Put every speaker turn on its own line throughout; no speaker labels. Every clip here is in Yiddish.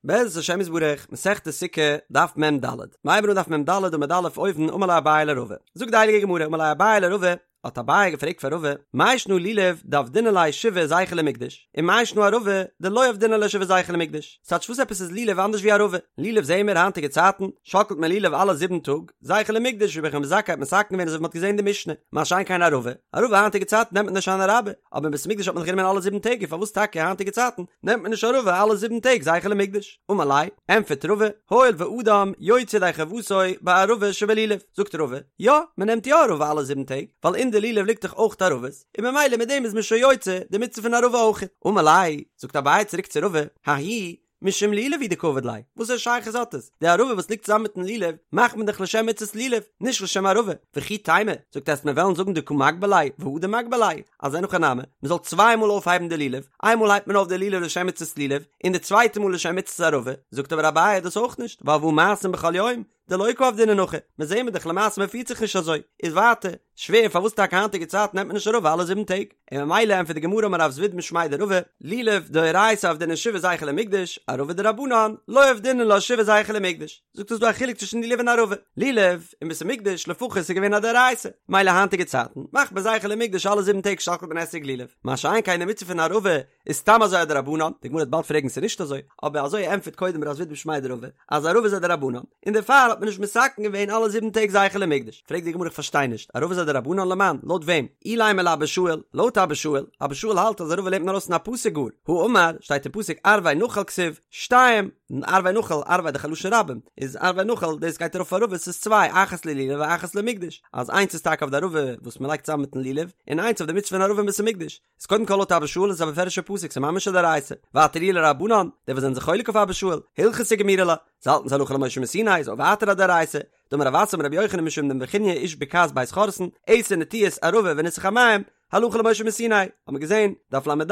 בעזרת השם יתברך, מסכת סוכה, דף מ ד. מ'הייבן אן דף מ ד עמוד א' אויבן, אמר ליה אביי לרבא. זאגט די הייליגע גמרא, אמר ליה אביי לרבא, האט אביי געפרעגט פאר רבא, מאי שנא לולב דעבדינן ליה שבעה זכר למקדש, און מאי שנא ערבה דלא עבדינן ליה שבעה זכר למקדש? ס'טייטש וואס עפעס איז לולב אנדערש ווי ערבה? לולב זעהן מיר היינטיגע צייטן, שאקלט מען לולב אלע זיבן טאג, זכר למקדש ווי רבי יוחנן בן זכאי האט מתקן געווען אזוי ווי מ'האט געזעהן אין די משנה, מה שאין כן ערבה, ערבה היינטיגע צייטן נעמט מען נישט הושענא רבה, אבער אין בית המקדש האט מען זיך גענומען אלע זיבן טעג און פארוואס טאקע היינטיגע צייטן נעמט מען נישט ערבה אלע זיבן טעג זכר למקדש? אמר ליה, ענטפערט רבא, הואיל ואדם יוצא ידי חובתו בערבה שבלולב, זאגט רבא, יא, מען נעמט יא ערבה אלע זיבן טעג, ווייל אין די לולב ליגט דאך אויך ערבות, און ממילא מיט דעם איז מען שוין יוצא די מצוה פון ערבה אויך. אמר ליה, זאגט אביי צוריק צו רבא, ההיא משום לולב הוא דקא עביד ליה, וואסערע שייכות האט עס? די ערבה וואס ליגט צוזאמען מיטן לולב מאכט מען דאך לשם מצות לולב, נישט לשם ערבה. וכי תימא, זאגט עסט מיר וועלן זאגן דקא מגבה ליה והדר מגבה ליה, אז אין הכי נמי, מען זאל צוויי מאל אויפהייבן די לולב, איין מאל הייבט מען אויף די לולב לשם מצות לולב, און די צווייטע מאל לשם מצות ערבה, זאגט אבער אביי דאס אויך נישט, ווייל והא מעשים בכל יום, דלא קא עבדינן הכי, מיר זעהן מיר דאך למעשה מען פירט זיך נישט אזוי, איז ווייטער שווער פארוואס טאקע היינטיגע צייטן נעמט מען נישט ערבה אלע זיבן טעג, און ממילא ענטפערט די גמרא אמר רב זביד משמיה דרבא, לולב דאורייתא עבדינן שבעה זכר למקדש, ערבה דרבנן, לא עבדינן לה שבעה זכר למקדש, זאגט ס'איז דא א חילוק צווישן לולב און ערבה, לולב אין בית המקדש לפחות איז געווען א דאורייתא, מילא היינטיגע צייטן מאכט מען זכר למקדש אלע זיבן טעג שאקלט מען אתרוג לולב, מה שאין כן די מצוה פון ערבה איז סתם אזוי א דרבנן, די גמרא וועט באלד פרעגן ס'איז נישט אזוי, אבער אזוי ענטפערט קודם רב זביד משמיה דרבא, אז ערבה איז א דרבנן, און דערפאר האט מען נישט מתקן געווען אלע זיבן טעג זכר למקדש, פרעגט די גמרא איך פארשטיי נישט, ערבה איז א דרבנן למאן, לויט וועם? אילימא לאבא שאול, לויט אבא שאול, אבא שאול האלט אז ערבה לערנט מען ארויס פון א פסוק גאר, האמר, שטייט אין פסוק ערבי נחל כתיב, שתיים, ערבי נחל, ערבי דאך א לשון רבים, איז ערבי נחל, דאס גייט ארויף אויף ערבות ס'איז צוויי, אחת ללולב ואחת למקדש, אז איינס איז טאקע אויף די ערבה וואס מ'לייגט צוזאם מיטן לולב, און איינס אויף די מצוה פון ערבה אין בית המקדש. איז קודם כל לויט אבא שאול איז א מפורש'ע פסוק ס'איז ממש א דאורייתא, ווייטער אי לרבנן, די וואס זענען זיך חולק אויף אבא שאול, הלכתא גמירי לה, זיי האלטן ס'הלכה למשה מסיני איז אויך ווייטער א דאורייתא, דאמר רב אסי אמר רבי יוחנן משום דבי נחוניא איש בקעת בית חורתן, עשר נטיעות ערבה וניסוך המים, הלכה למשה מסיני, האט מען געזען, דף לד,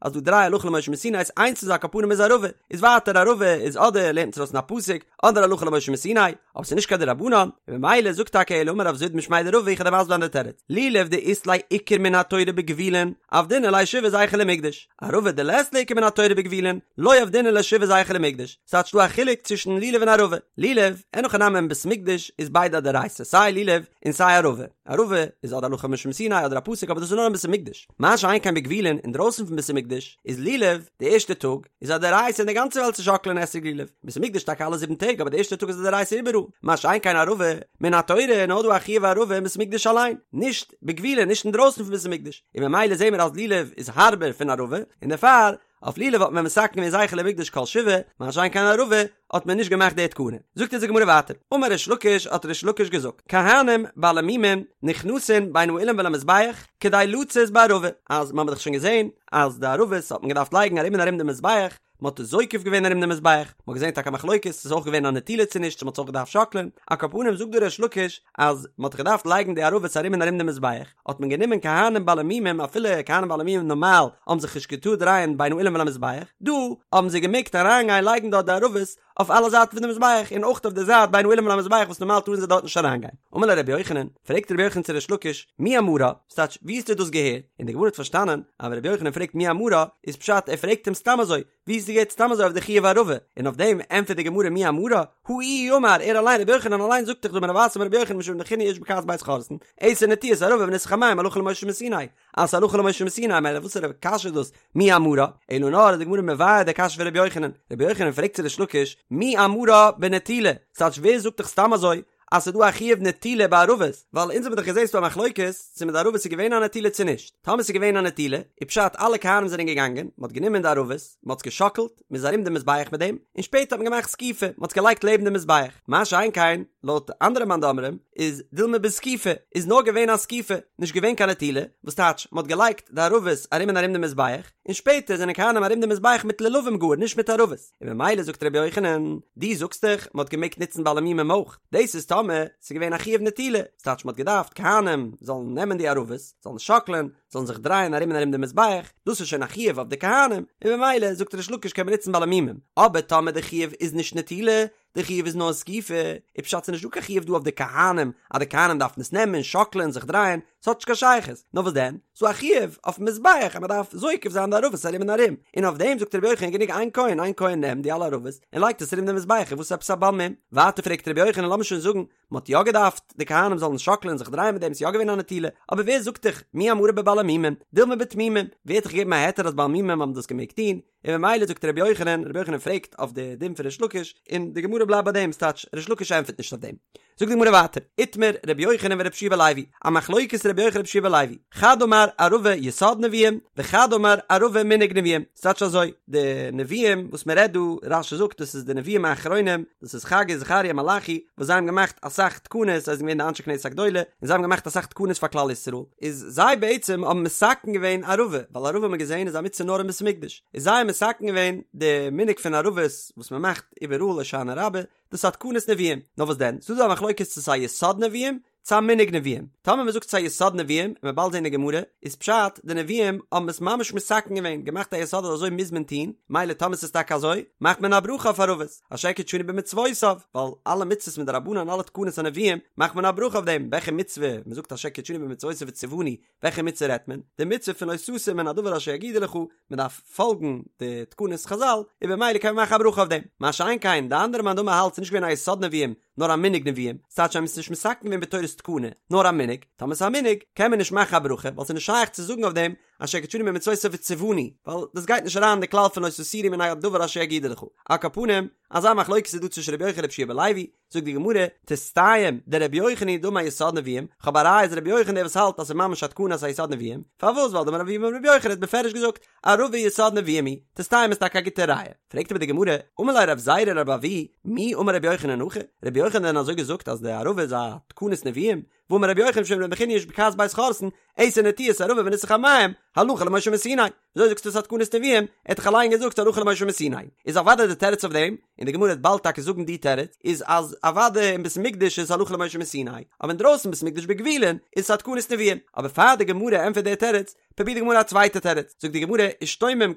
אז דא דריי הלכה למשה מסיני איז איינס פון זיי על כל פנים איז ערבה, איז ווייטער ערבה איז אדער לערנט מען עס ארויס פון א פסוק, אדער הלכה למשה מסיני, אבער ס'איז נישט קיין דרבנן, און ממילא זאגט טאקע אלא אמר רב זביד משמיה דרבא איך וועל דיר מסביר זיין די תירוץ, לולב דאית ליה עיקר מן התורה בגבולין, עבדינן ליה שבעה זכר למקדש, ערבה דלית ליה עיקר מן התורה בגבולין, לא עבדינן ליה שבעה זכר למקדש, ס'טייטש דא א חילוק צווישן לולב און ערבה, לולב, אין הכי נמי אין בית המקדש איז ביידע א דאורייתא סיי לולב און סיי ערבה, ערבה איז אדער הלכה למשה מסיני אדער א פסוק אבער דאס איז נאר אין בית המקדש, מה שאין כן בגבולין אינדרויסן פון בית המקדש איז לולב די ערשטע טאג איז א דאורייתא אין די גאנצע וועלט צו שאקלען אתרוג לולב, בית המקדש טאקע אלע זיבן טעג אבער די ערשטע טאג איז א דאורייתא איבעראל, מה שאין כן ערבה מן התורה איז נאר דא א חיוב ערבה אין בית המקדש אליין, נישט בגבולין נישט אינדרויסן פון בית המקדש, און ממילא זעהן מיר אז לולב איז הארבער פון ערבה, און דערפאר אויף לולב האט מען מתקן געווען זכר למקדש כל שבעה, מה שאין כן ערבה האט מען נישט געמאכט די תקנה. זאגט אונז די גמרא ווייטער, אמר ריש לקיש האט ריש לקיש געזאגט, כהנים בעלי מומים נכנסין בין האולם ולמזבח כדי לצאת בערבה, אז מען האט דאך שוין געזען אז די ערבות האט מען געדארפט לייגן ארום און ארום די מזבח, מען האט עס זוקף געווען ארום די מזבח, מען האט געזען טאקע א מחלוקת צו ס'איז אויך געווען א נטילה צו נישט צו מען האט עס אויך געדארפט שאקלען, על כל פנים זאגט דא ריש לקיש אז מען האט געדארפט לייגן די ערבות ארום און ארום די מזבח, האט מען גענומען כהנים בעלי מומים אפילו כהנים בעלי מומים נארמאל האבן זיך נישט געטארט דרייען בין האולם ולמזבח, דא האבן זיי געמעגט אריינגיין לייגן דארט די ערבות אויף אלע זייטן פון די מזבח און אויך אויף די זייט בין האולם ולמזבח וואס נארמאל טארן זיי דארט נישט אריינגיין. אמר ליה רבי יוחנן, פרעגט רבי יוחנן צו ריש לקיש, מי אמרה? ס'טייטש, ווי האסטו דאס געהערט? און די גמרא האט פארשטאנען אז ווען רבי יוחנן פרעגט מי אמרה, איז פשט ער פרעגט אים סתם אזוי, ווי האסטו געהערט סתם אזוי אויף די חיוב ערבה? און אויף דעם ענטפערט די גמרא מי אמרה? הא איהו אמר, ער אליין רבי יוחנן אליין זאגט דאך דאמר רב אסי אמר רבי יוחנן משום רבי נחוניא איש בקעת בית חורתן, עשר נטיעות ערבה וניסוך המים הלכה למשה מסיני, אז ס'הלכה למשה מסיני מילא וואסערע קשיא איז דאס מי אמרה? אלא נאר איז די גמרא מבאר די קשיא פון רבי יוחנן, רבי יוחנן פרעגט צו ריש לקיש מי אמרה בנטילה, ס'טייטש ווער זאגט דיך סתם אזוי אז ס'איז דא א חיוב נטילה ביי ערבות, ווייל אונז האבן דאך געזען ס'דא א מחלוקת צו מיט די ערבות איז געווען א נטילה צו נישט, טאמער ס'איז געווען א נטילה, איז פשט אלע כהנים זענען געגאנגען, מ'האט גענומען די ערבות, מ'האט עס געשאקלט, מ'איז ארום די מזבח מיט דעם, און שפעטער האט מען געמאכט זקיפה, מ'האט עס געלייגט לעבן די מזבח, מה שאין כן, לויט אנדערע מאן דאמרים, איז דילמא בזקיפה, איז נאר געווען א זקיפה, נישט געווען קיין נטילה, וואס טייטש, מ'האט געלייגט די ערבות ארום און ארום די מזבח, און שפעטער זענען כהנים ארום די מזבח מיט לולבים גאר, נישט מיט ערבות. און ממילא זאגט רבי יוחנן, דו זאגסט דאך מ'האט געמעגט נוצן בעלי מומים אויך, דאס איז טאמער ס'איז געווען א חיוב נטילה, ס'טייטש מ'האט געדארפט כהנים זאלן נעמען די ערבות, זאלן שאקלען, זאלן זיך דרייען ארום און ארום די מזבח, דאס איז שוין א חיוב אויף די כהנים, און ממילא זאגט ריש לקיש קען מען נוצן בעלי מומים, אבער טאמער די חיוב איז נישט נטילה, די חיוב איז נאר זקיפה, איז פשט ס'נישט דא קיין חיוב דא אויף די כהנים אז די כהנים דארפן עס נעמען, שאקלען, זיך דרייען, ס'האט נישט קיין שייכות, נאר וואס דען? ס'דא א חיוב אויפן מזבח אז מ'דארף זוקף זיין די ערבות ארום און ארום, און אויף דעם זאגט רבי יוחנן גענוג איין כהן, איין כהן נעמט די אלע ערבות און לייגט עס ארום די מזבח, און וואס עפעס א בעל מום? ווייטער פרעגט רבי יוחנן לאמיר שוין זאגן מ'האט יא געדארפט די כהנים זאלן שאקלען און זיך דרייען מיט דעם, ס'איז יא געווען א נטילה, אבער ווער זאגט דיך מי אמרה בבעלי מומים, דילמא בתמימים, ווער האט דיך געגעבן א היתר אז בעלי מומים האבן דאס געמעגט טון, און ממילא זאגט רבי יוחנן, רבי יוחנן פרעגט אויף די דין פון ריש לקיש, און די גמרא בלייבט ביי דעם, ס'טייטש ריש לקיש ענטפערט נישט אויף דעם. זאגט די גמרא ווייטער, איתמר רבי יוחנן ורבי יהושע בן לוי, א מחלוקת רבי יוחנן רבי יהושע בן לוי, חד אמר ערבה יסוד נביאים, וחד אמר ערבה מנהג נביאים, ס'טייטש אזוי, די נביאים וואס מען רעדט דא, רש"י זאגט דאס איז די נביאים האחרונים, דאס איז חגי זכריה מלאכי, וואס זיי האבן געמאכט אסאך תקנות, זיי זענען געווען די אנשי כנסת הגדולה, און זיי האבן געמאכט אסאך תקנות פאר כלל ישראל, איז זיי בעצם האבן מתקן געווען ערבה, ווייל ערבה האט מען געזען איז א מצוה נאר אין בית המקדש, איז זיי האבן מתקן געווען די מנהג פון ערבות וואס מען מאכט איבעראל הושענא רבה, דאס איז א תקנת נביאים, נאר וואס דען, ס'איז דא א מחלוקת צו ס'איז א יסוד נביאים, צו א מנהג נביאים. טאמער מ'זאגט ס'איז א יסוד נביאים, און מ'וועט באלד זען אין גמרא, איז פשט, די נביאים האבן עס ממש מתקן געווען, געמאכט א יסוד אז אזוי מוז מען טון, מילא טאמער ס'איז טאקע אזוי, מאכט מען א ברכה אויף ערבות, אשר קדשנו במצוותיו, ווייל אלע מצוות מדרבנן אלע תקנות הנביאים, מאכט מען א ברכה אויף דעם, וועלכע מצוה, מ'זאגט אשר קדשנו במצוותיו וציוונו, וועלכע מצוה רעדט מען? די מצוה פון לא תסור מן הדבר אשר יגידו לך, מען דארף פאלגן די תקנות חז"ל, און במילא קען מען מאכן א ברכה אויף דעם. מה שאין כן, די אנדערע מאן דאמר האלט ס'איז נישט געווען א יסוד נביאים, נאר א מנהג נביאים, ס'טייטש זיי האבן עס נישט מתקן געווען בתורת תקנה, נאר א מנהג, טאמער ס'איז א מנהג, קען מען נישט מאכן א ברכה, ווייל ס'איז נישט שייך צו זאגן אויף דעם אשר קדשנו במצוותיו וציוונו, ווייל דאס גייט נישט אריין אין די כלל פון לא תסורו מן הדבר אשר יגידו לך. על כל פנים, אזא מחלוקת איז דא צווישן רבי יוחנן און רבי יהושע בן לוי, זאגט די גמרא, תסתיים דרבי יוחנן היא דאמר יסוד נביאים, כ'האב א ראיה אז רבי יוחנן דער וואס האלט אז ס'איז ממש א תקנה אז ס'איז א יסוד נביאים, פארוואס ווייל דאמר רב אבהו אמר רבי יוחנן האט בפירוש געזאגט ערבה יסוד נביאים היא, תסתיים איז טאקע א גוטע ראיה. פרעגט אבער די גמרא, אמר ליה רב זירא לרב אבהו, מי אמר רבי יוחנן הכי, רבי יוחנן דען אזוי געזאגט אז די ערבה איז א תקנת נביאים? והאמר רבי יוחנן משום רבי נחוניא איש בקעת בית חורתן, עשר נטיעות ערבה וניסוך המים, הלכה למשה מסיני. וויאזוי זאגסטו ס'איז א תקנת נביאים? ער האט דאך אליין געזאגט הלכה למשה מסיני. איז אוודאי די תירוץ אויף דעם, און די גמרא וועט באלד טאקע זאגן די תירוץ, איז אז אוודאי אין בית המקדש איז הלכה למשה מסיני, אבער אינדרויסן בית המקדש בגבולין איז עס א תקנת נביאים. אבער פאר די גמרא ענטפערט די תירוץ, פרובירט די גמרא א צווייטע תירוץ, זאגט די גמרא, אשתומם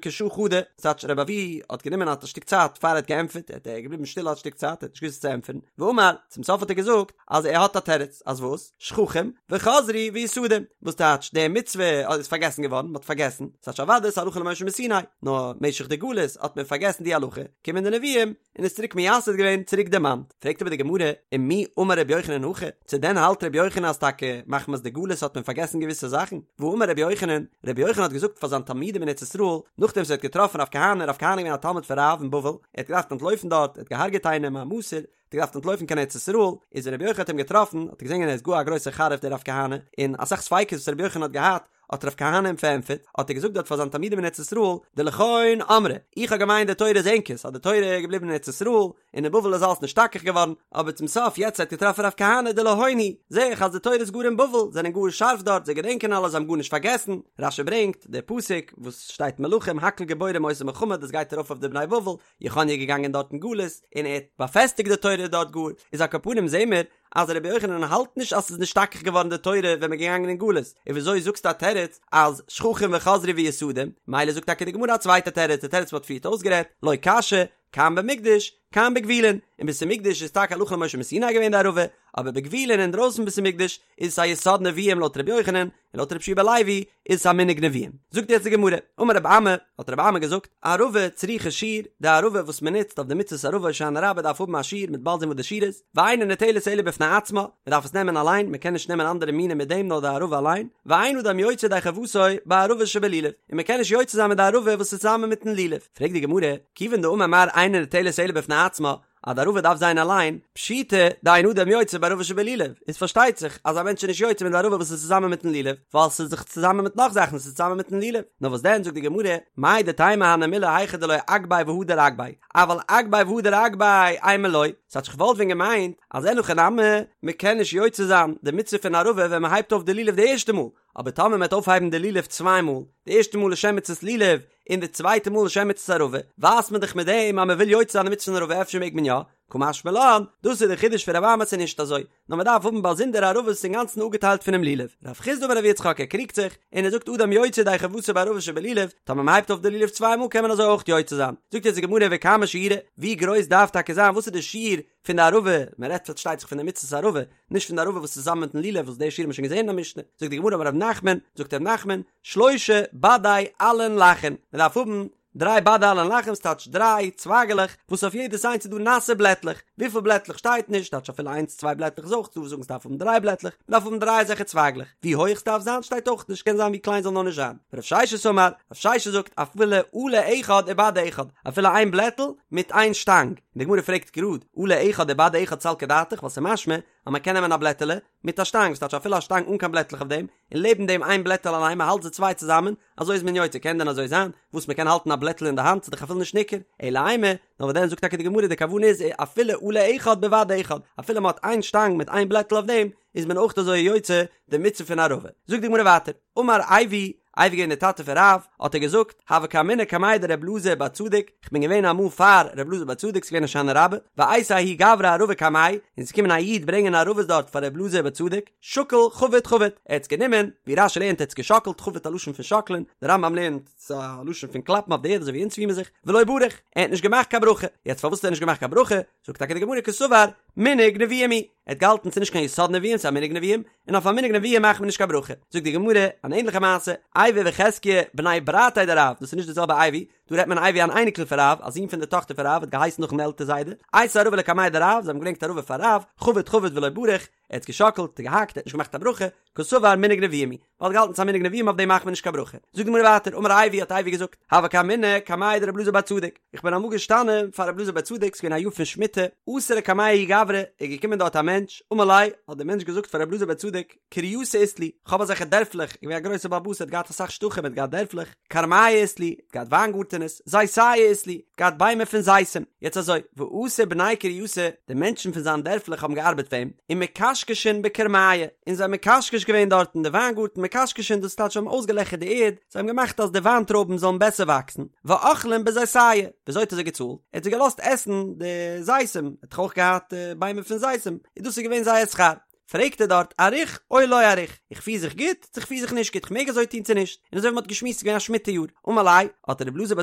כשעה חדא, ס'טייטש רבי אבהו האט גענומען א שטיק צייט פאר ער האט געענטפערט, ער האט געבליבן שטיל א שטיק צייט, ער האט נישט געוואוסט וואס צו ענטפערן, ואמר, צום סוף האט ער געזאגט אז ער האט א תירוץ, אז וואס? שכחום וחזרו ויסדום, וואס טייטש די מצוה איז פארגעסן געווארן, מ'האט פארגעסן, ס'טייטש אוודאי ס'איז הלכה למשה מסיני, נאר משך די גלות האט מען פארגעסן די הלכה, קומען די נביאים און עס צוריק מייסד געווען, צוריק דערמאנט. פרעגט אבער די גמרא, ומי אמר רבי יוחנן הכי, צו דען האלט רבי יוחנן אז טאקע מחמת די גלות האט מען פארגעסן געוויסע זאכן? והאמר רבי יוחנן, רבי יוחנן האט געזאגט פאר זיין תלמידים אין ארץ ישראל, נאכדעם וואס ער האט געטראפן רב כהנא, רב כהנא איז געווען א תלמיד פון רב אין בבל, ער האט געדארפט אנטלויפן דארט, ער האט געהארגעט איינעם א מסור, האט ער געדארפט אנטלויפן קיין ארץ ישראל, איז רבי יוחנן האט אים געטראפן, האט ער געזען ער איז גאר א גרויסער חריף דער רב כהנא, און אסאך ספיקות וואס רבי יוחנן האט געהאט, האט רב כהנא אים פארענטפערט, האט ער געזאגט דארט פאר זיין תלמידים אין ארץ ישראל, דלכון אמרי, איך האב געמיינט די תורה איז ענקערס, אז די תורה איז געבליבן אין ארץ ישראל, און אין בבל איז אלעס נשתכח געווארן, אבער צום סוף יעצט ער האט געטראפן רב כהנא דלהון היא, זעה איך אז די תורה איז גאר אין בבל, זענען גאר שארף דארט, זיי געדענקען אלעס, זיי האבן גארנישט פארגעסן, רש"י ברענגט, דער פסוק וואס שטייט מלכים הכל גבורים עושים מלחמה דאס גייט ארויף אויף די בני בבל, יכניה איז געגאנגען דארט אין גלות און ער האט באפעסטיגט די תורה דארט גאר, איז על כל פנים זעהן מיר אז רבי יוחנן האלט נישט אז ס'איז נשתכח געווארן די תורה ווען מ'איז געגאנגען אין גלות, און וויאזוי זאגסטו א תירוץ אז שכחום וחזרו ויסדום, מילא זאגט טאקע די גמרא א צווייטע תירוץ, די תירוץ מ'האט פריערט אויסגערעדט, לא קשיא, כאן במקדש, כאן בגבולין, אין בית המקדש איז טאקע הלכה למשה מסיני געווען די ערבה, אבער בגבולין אינדרויסן בית המקדש איז עס א יסוד נביאים לויט רבי יוחנן, און לויט רבי יהושע בן לוי איז עס א מנהג נביאים. זאגט יעצט די גמרא, אמר רבי אמי, האט רבי אמי געזאגט, ערבה צריכה שיעור, די ערבה וואס מען נוצט אויף די מצות ערבה הושענא רבה דארף האבן א שיעור, מ'וועט באלד זען וואס די שיעור איז, ואינה ניטלת אלא בפני עצמה, מען דארף עס נעמען אליין, מען קען נישט נעמען אנדערע מינים מיט דעם נאר די ערבה אליין, ואין אדם יוצא ידי חובתו בערבה שבלולב, און מען קען נישט יוצא זיין מיט די ערבה וואס איז צוזאמען מיטן לולב. פרעגט די גמרא, כיוון דאמר מר אינה ניטלת אלא בפני עצמה, אז די ערבה דארף זיין אליין, פשיטא דאין אדם יוצא בערבה שבלולב, איז פארשטייט זיך אז א מענטש איז נישט יוצא מיט די ערבה וואס איז צוזאמען מיטן לולב, ווייל ס'איז דאך צוזאמען מיט נאך זאכן, ס'איז צוזאמען מיטן לולב. נאר וואס דען זאגט די גמרא, מהו דתימא הני מילי היכא דלא אגביה והדר אגביה, אבל אגביה והדר אגביה אימא לא, ס'טייטש כ'וואלט ווען געמיינט אז אין הכי נמי, מ'קען נישט יוצא זיין די מצוה פון ערבה ווען מ'הייבט אויף די לולב די ערשטע מאל, אבער טאמער מ'וועט אויפהייבן די לולב צוויי מאל, די ערשטע מאל לשם מצות לולב, און די צווייטע מאל לשם מצות ערבה, ווייזט מען דאך מיט דעם אז מ'וויל יוצא זיין די מצוה פון ערבה אפשר מעג מען יא? קא משמע לן, דאס איז די חידוש פון רבי אמי ס'איז נישט אזוי, נאר מען דארף האבן באזונדער ערבות אינגאנצן אפגעטיילט פונעם לולב. רב חסדא אמר רב יצחק ער קריגט זיך, און ער זאגט אדם יוצא ידי חובתו בערבות שבלולב, טאמער מען הייבט אויף די לולב צוויי מאל קען מען אזוי אויך יוצא זיין. זאגט יעצט די גמרא וכמה שיעורה, ווי גרויס דארף טאקע זיין, וואס איז די שיעור פון די ערבה, מען רעדט פארשטייט זיך פון די מצות ערבה, נישט פון די ערבה וואס איז צוזאמען מיטן לולב וואס די שיעור האט מען שוין געזען אין א משנה, זאגט די גמרא אמר רב נחמן, זאגט רב נחמן, שלשה בדי עלין לחין, מען דארף האבן דריי בדי עלין לחין ס'טייטש דריי צווייגעלעך וואס אויף יעדעס איינס איז דא נאסע בלעטלעך, וויפיל בלעטלעך שטייט נישט, טייטש אפילו איינס צוויי בלעטלעך איז אויך דא וואס זאגן ס'דארף האבן דריי בלעטלעך, מ'דארף האבן דריי אזעלכע צווייגלעך, ווי הויך ס'דארף זיין שטייט אויך נישט, קען זיין ווי קליין זאל נאר נישט זיין. רב ששת אמר, רב ששת זאגט אפילו עלה אחד ובד אחד, אפילו איין בלעטל מיט איין שטאנג, און די גמרא פרעגט גראד, עלה אחד ובד אחד סלקא דעתך, ווייל ס'איז משמע אז מ'קען נעמען א בלעטעלע מיט א שטאנג, ס'טייטש אפילו א שטאנג אן קיין בלעטלעך אויף דעם, און לעבן דעם איין בלעטעל אליין, מען האלט זיי צוויי צוזאמען, אזוי איז מען יוצא, קען דען אזוי זיין, וואס מען קען האלטן א בלעטל אין די האנט, ס'איז דאך אפילו נישט ניכר, אלא אימא, נאר וואס דען זאגט טאקע די גמרא די כוונה איז אפילו עלה אחד בבד אחד, אפילו מען האט איין שטאנג מיט איין בלעטל אויף דעם, איז מען אויך אזוי יוצא די מצוה פון ערבה. זאגט די גמרא ווייטער, אמר אייבו, אייבו געווען די טאטע פון רב, האט ער געזאגט, הוה קאימנא קמיה דר' אלעזר בר צדוק, כ'בין געווען אמאל פאר ר' אלעזר בר צדוק, ס'געווען הושענא רבה, ואייתי ההוא גברא ערבה קמיה, און ס'איז געקומען א איד ברענגען ערבות דארט פאר ר' אלעזר בר צדוק, שקל חביט חביט, ער האט עס גענומען, ווי רש"י לערנט ער האט עס געשאקלט, חביט א לשון פון שאקלען, דער רמב"ם לערנט ס'איז א לשון פון קלאפן אויף די ערד אזוי ווי אונז פירן מיר זיך, ולא בריך, ער האט נישט געמאכט קיין ברכה, יעצט פארוואס האט ער נישט געמאכט קיין ברכה, זאגט טאקע די גמרא קסבר, מנהג נביאים הוא, ער האט געהאלטן ס'איז נישט קיין יסוד נביאים ס'איז א מנהג נביאים, און אויף א מנהג נביאים מאכט מען נישט קיין ברכה, זאגט די גמרא אן ענליכע מעשה, אייבו וחזקיה בני ברתיה דרב, דאס איז נישט די זעלבע אייבו, דא רעדט מען אייבו אן אייניקל פון רב, א זון פון די טאכטער פון רב, האט געהייסן נאכן עלטער זיידע, אייתו ערבה לקמיה דרב, זיי האבן געברענגט ערבה פאר רב, חביט חביט ולא בריך, ער האט געשאקלט, געהאקט, ער האט נישט געמאכט א ברכה, קסבר מנהג נביאים הוא, ווייל ער האט געהאלטן ס'איז א מנהג נביאים אויף דעם מאכט מען נישט קיין ברכה. זאגט די גמרא ווייטער, אמר אייבו האט אייבו געזאגט, הוה קאימנא קמיה דרבי אלעזר בר צדוק, איך בין אמאל געשטאנען פאר רבי אלעזר בר צדוק, ס'איז געווען א יאר פון שמיטה, אתא לקמיה ההוא גברא, איז געקומען דארט א מענטש, אמר ליה, האט דער מענטש געזאגט פאר רבי אלעזר בר צדוק, קרייתא אית לי, כ'האב אזעלכע דערפלעך, געווען א גרויסער בעל הבית, ער האט געהאט אסאך שטחים, ער האט געהאט דערפלעך, כרמיא אית לי, האט געהאט וויינגארטענעס, זיתיא אית לי, האט געהאט ביימער פון זיתים, יעצט אזוי, ואתו בני קרייתא, די מענטשן פון זיין דערפלעך האבן געארבעט פאר אים, ומקשקשין בכרמיא, און זיי האבן מקשקש געווען דארט אין די וויינגארטן, מקשקשין דאס טייטש זיי האבן אויסגעלעכערט די ערד, זיי האבן געמאכט אז די וויינטרויבן זאלן בעסער וואקסן, ואכלין בזיתיא, וויאזוי האט ער זיי געצאלט? ער האט זיי געלאזט עסן די זיתים, ער האט דאך אויך געהאט ביימער פון זיתים, און דאס איז געווען זייער שכר. פרעגט ער דארט אריך או לא אריך, איך פיר זיך גוט צו איך פיר זיך נישט גוט, איך מעג אזוי טון צו נישט, און אזוי ווי מען האט געשמועסט איז געווען א שמיטה יאר, אמר ליה, האט רבי אלעזר בר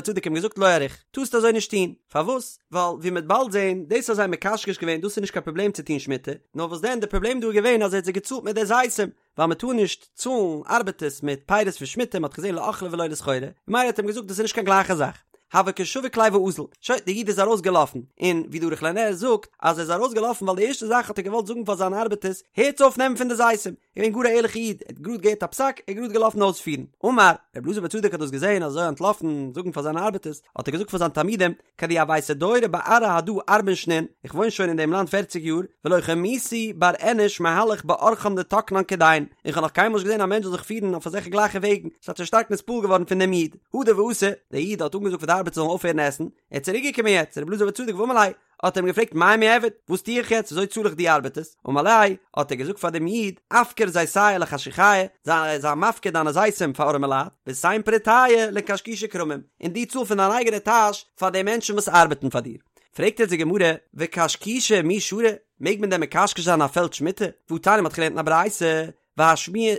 צדוק אים געזאגט לא אריך, טארסט אזוי נישט טון, פארוואס? ווייל ווי מען וועט באלד זען, דאס אז זיי האבן מקשקש געווען דאס איז נישט קיין פראבלעם צו טון שמיטה, נאר וואס דען די פראבלעם דא איז געווען אז ער האט זיי געצאלט מיט די זיתים, ווייל מען טאר נישט צאלן ארבעטערס מיט פירות פון שמיטה, מען האט געזען לאכלה ולא לסחורה, ממילא האט ער אים געזאגט דאס איז נישט קיין גלייכע זאך. הוה קא שביק ליה ואזיל, שוין, דער איד איז ארויסגעלאפן, און ווי דער ערוך לנר זאגט, אז ער איז ארויסגעלאפן ווייל די ערשטע זאך האט ער געוואלט זאגן פאר זיינע ארבעטערס, הערטס אויף נעמען פון די זיתים, געווען גאר א ערליכע איד, ער האט גראד געהערט א פסק, ער איז גראד געלאפן אויספירן. אמר, רבי אלעזר בר צדוק האט דאס געזען אזוי אנטלאפן זאגן פאר זיינע ארבעטערס, האט ער געזאגט פאר זיינע תלמידים, כדי הויתי דיירי בארעא הדא ארבעין שנין, איך וואוין שוין אין דעם לאנד פערציג יאר, ולא חמיתי בר אינש מהלך באורחן דתקנן כדין, און כ'האב נאך קיינמאל נישט געזען א מענטש זאל זיך פירן אויף אזעלכע גלייכע וועגן, ס'האט זיך שטארק נתפעל געווארן פון דעם איד. הדר ואתא, דער איד האט אנגעזאגט פאר די ארבעטער זאלן אויפהערן עסן, ער איז צוריק געקומען יעצט צו רבי אלעזר בר צדוק ואמר ליה, האט ער אים געפרעגט מאי מיעבד, וואס טו איך יעצט, וויאזוי צאל איך די ארבעטערס, אמר ליה, האט ער געזאגט פאר דעם איד, אפקר זיתיא לחשוכיא, זיי זיי מפקיר דיינע זיתים פאר ארעמע לייט, ותן פריטיא לקשקושי כרמים, און דו צאל פון דיין אייגענע טאש פאר די מענטשן וואס ארבעטן פאר דיר. פרעגט יעצט די גמרא, וקשקושי מי שרי, מעג מען דען מקשקש זיין א פעלד שמיטה? והתניא מ'האט געלערנט אין א ברייתא,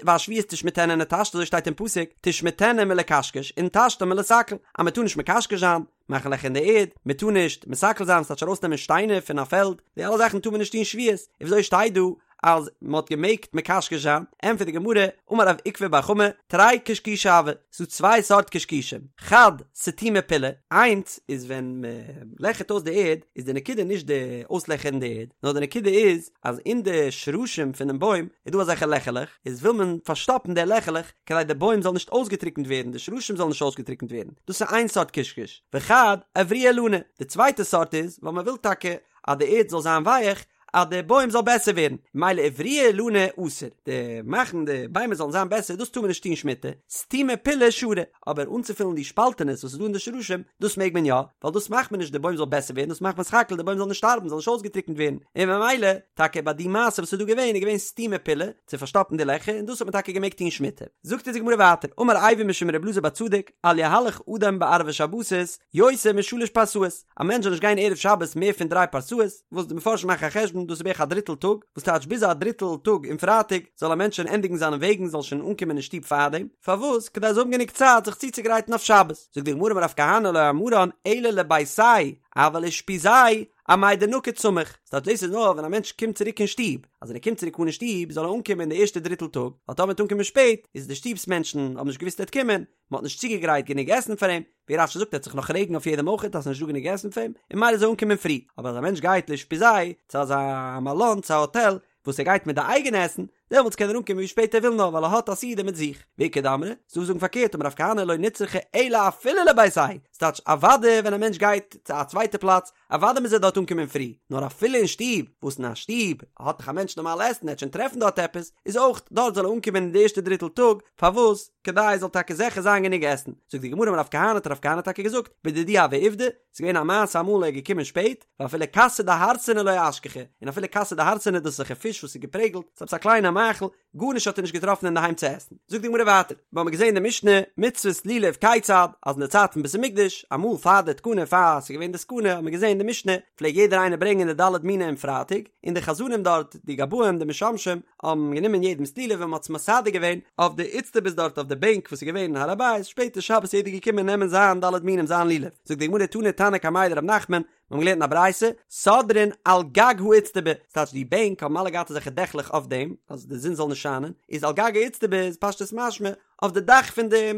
והשביעית תשמטנה ונטשתה אזוי שטייט אין פסוק, תשמטנה מלקשקש ונטשתה מלסקל, אז מען טאר נישט מקשקש זיין, מאכן לעכער אין די ערד, מען טאר נישט מסקל זיין, ס'טייטש ארויסנעמען שטיינער פון א פעלד, די אלע זאכן טאר מען נישט טון שביעית, און וויאזוי שטייט דא אז מען האט געמעגט מקשקש זיין, ענטפערט די גמרא, אמר רב עוקבא בר חמא, תרי קשקושי הוו, ס'דא צוויי סארט קשקושים, חד סתומי פילא, איינס איז ווען מען לעכערט אויס די ערד, איז די נקודה נישט די אויסלעכערן די ערד, נאר די נקודה איז אז אין די שרשים פונעם בוים איז דא אזעלכע לעכערלעך, איז וויל מען פארשטאפן די לעכערלעך כדי די בוים זאל נישט אויסגעטריקנט ווערן, די שרשים זאלן נישט אויסגעטריקנט ווערן, דאס איז איין סארט קשקוש, וחד אברויי אילני, די צווייטע סארט איז ווייל מען וויל טאקע אז די ערד זאל זיין ווייעך, אז די בוים זאל בעסער ווערן, ממילא אברויי אילני אסור, די מאכן די ביימער זאלן זיין בעסער דאס טאר מען נישט טון שמיטה, סתומי פילאי שרי, אבער אנצופילן די שפאלטענעס וואס איז דא אין די שרשים, דאס מעג מען יא, ווייל דאס מאכט מען נישט די בוים זאל בעסער ווערן, דאס מאכט מען סך הכל די בוים זאל נישט שטארבן, זאל נישט אויסגעטריקנט ווערן, און ממילא, טאקע ביי די מעשה וואס איז דא געווען, איז געווען סתומי פילאי, צו פארשטאפן די לעכער, און דאס האט מען טאקע געמעגט טון שמיטה. זאגט אונז די גמרא ווייטער, אמר אייבו משום ר' אלעזר בר צדוק, אל יהלך אדם בערבי שבתות יותר משלש פרסאות, א מענטש זאל נישט גיין ערב שבת מער פון דריי פרסאות, וואס די מפרשים מאכן א חשבון דאס איז בערך א דריטל טאג, וואס טייטש ביז א דריטל טאג אום פרייטאג זאל א מענטש שוין ענדיגן זיינע וועגן זאל שוין אנקומען אין שטוב פארדעם, פארוואס? כדי ער זאל האבן גענוג צייט זיך צוצוגרייטן אויף שבת. זאגט די גמרא אמר רב כהנא לא אמרן אלא לביתיה אבל לאושפיזיה אמאי דנקיט סמיך, ס'טייטש דאס איז נאר ווען א מענטש קומט צוריק אין שטוב, אז ווען ער קומט צוריק אן אין שטוב זאל ער אנקומען אין די ערשטע דריטל טאג, ווייל טאמער ער וועט אנקומען שפעט איז די שטוב'ס מענטשן האבן נישט געוואוסט ער וועט קומען, מען האט נישט צוגעגרייט גענוג עסן פאר אים, ווי רש"י זאגט ער וועט זיך נאך רעגן אויף יעדעם אויכעט אז ס'איז נישט דא גענוג עסן פאר אים, און ממילא זאל ער אנקומען פרי, אבער אז א מענטש גייט לאושפיזיה צו אזא מלון צו א האטעל וואס ער גייט מיט די אייגענע עסן, דעמאלטס קען ער אנקומען ווי שפעט ער וויל נאר ווייל ער האט א סעודה מיט זיך. ואיכא דאמרי, ס'דא וואס זאגן פארקערט אמר רב כהנא לא נצרכה אלא אפילו לביתיה, ס'טייטש אוודאי ווען א מענטש גייט צו א צווייטע פלאץ, אוודאי מוז ער דארט אנקומען פרי, נאר אפילו אין שטוב, וואס אין א שטוב האט דאך א מענטש נארמאל עסן, ער וועט שוין טרעפן דארט עפעס, איז אויך דארט זאל ער אנקומען אין די ערשטע דריטל טאג, פארוואס? כדי עס זאל טאקע זיכער זיין גענוג עסן. זאגט די גמרא אמר רב כהנא האט רב כהנא טאקע געזאגט, בדידי הוה עובדא, ס'איז געווען א מעשה אמאל ער איז געקומען שפעט, ואפילו כסא דהרסנא לא אשכחיה, און אפילו כסא דהרסנא דאס איז אזעלכע פיש וואס איז געפרעגלט, ס'איז עפעס א קליינע מאכל, גארנישט האט ער נישט געטראפן אינדערהיים צו עסן. זאגט די גמרא ווייטער, מיר האבן געזען אין די משנה, מצות לולב כיצד, אז אין די צייט פון בית המקדש, אמאל פאר די תקנה פאר ס'איז געווען די סכנה, האט מען געזען אין די משנה, פלעג יעדער איינער ברענגען די ד' מינים פרייטאג, און די חזנים דארט, די גבאים, די משמשים, האבן גענומען יעדעמ'ס לולב און מ'האט עס מסדר געווען אויף די איצטבאות דארט אויף די בענק וואס איז געווען אין הר הבית, שפעטער שבת איז יעדער געקומען נעמען זיין ד' מינים זיין לולב. זאגט די גמרא תני תנא קמיה דרב נחמן, מיר האבן געלערנט אין א ברייתא, סודרין על גג האיצטבא, ס'טייטש די בענק האבן אלע געהאט אזעלכע דעכלעך אויף דעם, אז די זון זאל נישט שיינען, איז על גג האיצטבא איז פשטות משמע, אויף די דאך פון די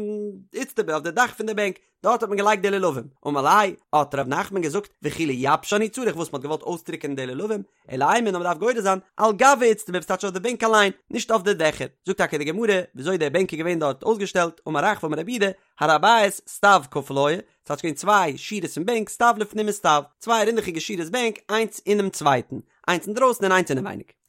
איצטבא, אויף די דאך פון די בענק, דארט האט מען געלייגט די לולבים. אמר ליה, האט ר' נחמן געזאגט, וכי לייבשן הוא צריך, וואס מ'האט געוואלט אויסטריקענען די לולבים, אלא אימא נאר מ'דארף גורס זיין, על גב האיצטבא, ס'טייטש אויף די בענק אליין, נישט אויף די דעכער. זאגט טאקע די גמרא, וויאזוי די בענק איז געווען דארט אויסגעשטעלט, אמר רחבה אמר רב יהודה, הר הבית סטיו כפול היה, ס'טייטש געווען צוויי שורות פון בענק, סטיו לפנים מסטיו, צוויי רינדעכיגע שורות בענק, איינס אינעם צווייטן, איינס אינדרויסן און איינס אינעווייניג.